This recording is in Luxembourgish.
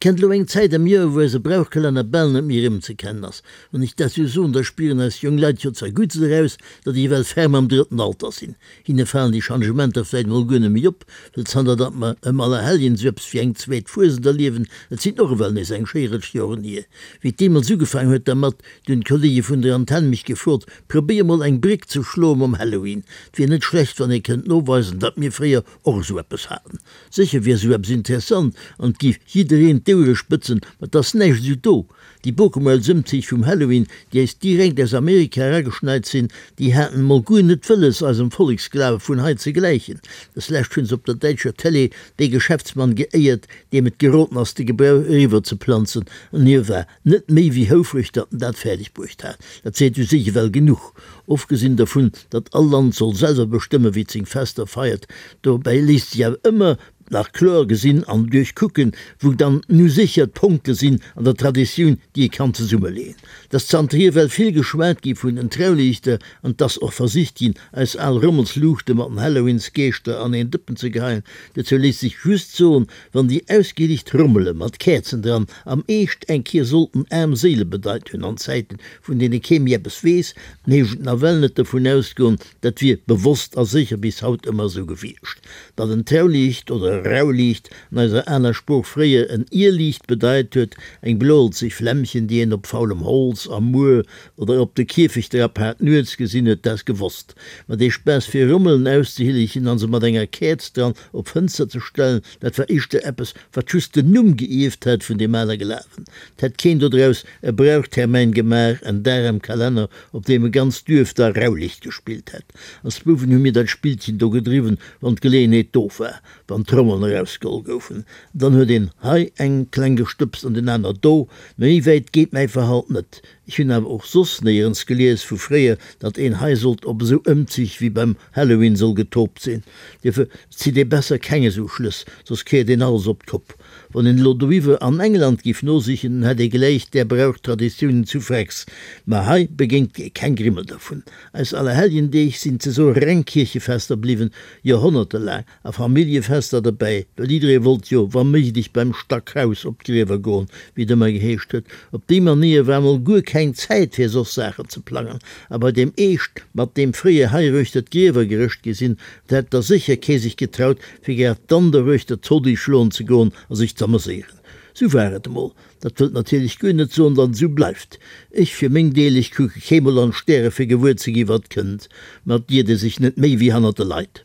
Kennt elo eng Zäit am Joer, wou eise Brauchkalenner bal net méi erëmzekennen ass. Wann ech dat sou soen, da spieren eis jonk Leit jo zerguttst eraus, datt ech ewell ferm am drëtten Alter sinn. Hinne falen déi Changementer vläit mol guer net méi op, well zanter datt mer ëm Allerhelljen sou eppes wéi eng zweet Fuesent erliewen, et sinn och ewell nees eng schéi Rëtsch Joren hier. Wéi et deemools ugefaang huet dermat, du hunn d'Kollege vun der Antenn mech gefrot, probéier mol eng Bréck ze schloe mam Halloween. Et wier net schlecht, wann ee kënnt noweisen, datt mir fréier och esou eppes haten. Sécher wier esou eppes interessant an et géif jiddereen d'Ouere spëtzen, ma et ass näischt esou do. Déi Bokemuelsëmzich vum Halloween, déi eis direkt aus Amerika erageschneit sinn, déi haten mol guer net wëlles eisem Volleksglawe vun hei ze gläichen. Des lescht hunn se op der däitscher Télé dee Geschäftsmann geéiert, deem et geroden ass de Gebrauch eriwwer ze planzen, an hie war net méi wéi houfreg, datt en dat fäerdeg bruecht hat. Dat seet u sech ewell genuch. Ofgesinn dervun, datt all Land soll selwer bestëmmen, wéi et seng Fester feiert. Dobäi léisst sech awer ëmmer nach kloer gesinn an duerchkucken, wou dann nu sécher d'Ponkte sinn an der Traditioun, déi ee kann zesummeleeën. Et ass zanterhier well vill geschwat gi vun den Trauliichter an et ass och versicht ginn, eis al Rommelsluuchte mat den Halloweensgeeschter an een Dëppen ze geheien. Dozou léisst sech just soen, Wann déi ausgelicht Rommele mat Käerzen dran am Eescht eng Kier sollten aarm Séile bedeit hunn an Zäiten, vun deene kee méi eppes weess, dann heescht et nawell net dovun ausgoen, dat wier bewosst a sécher bis haut ëmmer esou gewiescht. Datt en Trauliicht oder e Rauliicht an eiser aler Sprooch fréier en Irliicht bedeit huet, eng bloelzeg Flämmchen, déi een op faulem Holz, am Muer oder op de Kierfecht erapaart nuets gesinn huet, dat ass gewosst. Ma dee Spaass fir Rommelen auszehillechen an se mat enger Käerz dran op d'Fënster ze stellen, dat war éischter eppes, wat just den Numm geierft hat vun deem ale Glawen. 't hätt keen dodraus e Brauchtermäin gemaach, en Dag am Kalenner, op deem e ganzt Duerf da Raulicht gespillt hätt. Als Bouwen hu mir dat Spillchen do gedriwwen, wann d'Geleeënheet do war, wann d'Trommeln erausgeholl goufen. Dann huet een hei eng kleng gestëbst an deen aner do. Mä méi wäit geet mäi Verhalt net. Ech hunn awer och soss néierens gelies vu fréier, datt een hei sollt op esou Ëmzich wéi beim Halloween soll getoopt sinn. Dofir zitt ee besser keng esou Schlëss, soss kéiert een alles op d'Kopp. Wann een elo doiwwer an England giff nosichen, dann hätt ee gläich där Brauch-Traditiounen zu Frex. Ma hei begéint ee keng Grimmel dervun. Eis Allerhelljendeeg sinn ze soe reng Kierchefester bliwwen, joerhonnertelaang. A Familljefester derbäi, well jidderee wollt jo wa méiglech beim Stackhaus op d'Griewer goen, wéi et ëmmer geheescht huet. Op déi Manéier war mol guer keng Zäit fir soss Saachen ze plangen. A bei deem Eescht, mat deem fréier heiruechter d'Griewer gerëscht gi sinn, da hätt da sécher kee sech getraut, fir grad dann doruechter d'Zodi schloen ze goen a sech z'ameséieren. Sou war et emol. Dat wëllt natierlech guer net soen, datt et esou bleift. Ech fir meng Deel, ech kucke keemol an d'Stäre fir gewuer ze gi wat kënnt. Ma et iert ee sech net méi wéi hannert de Leit.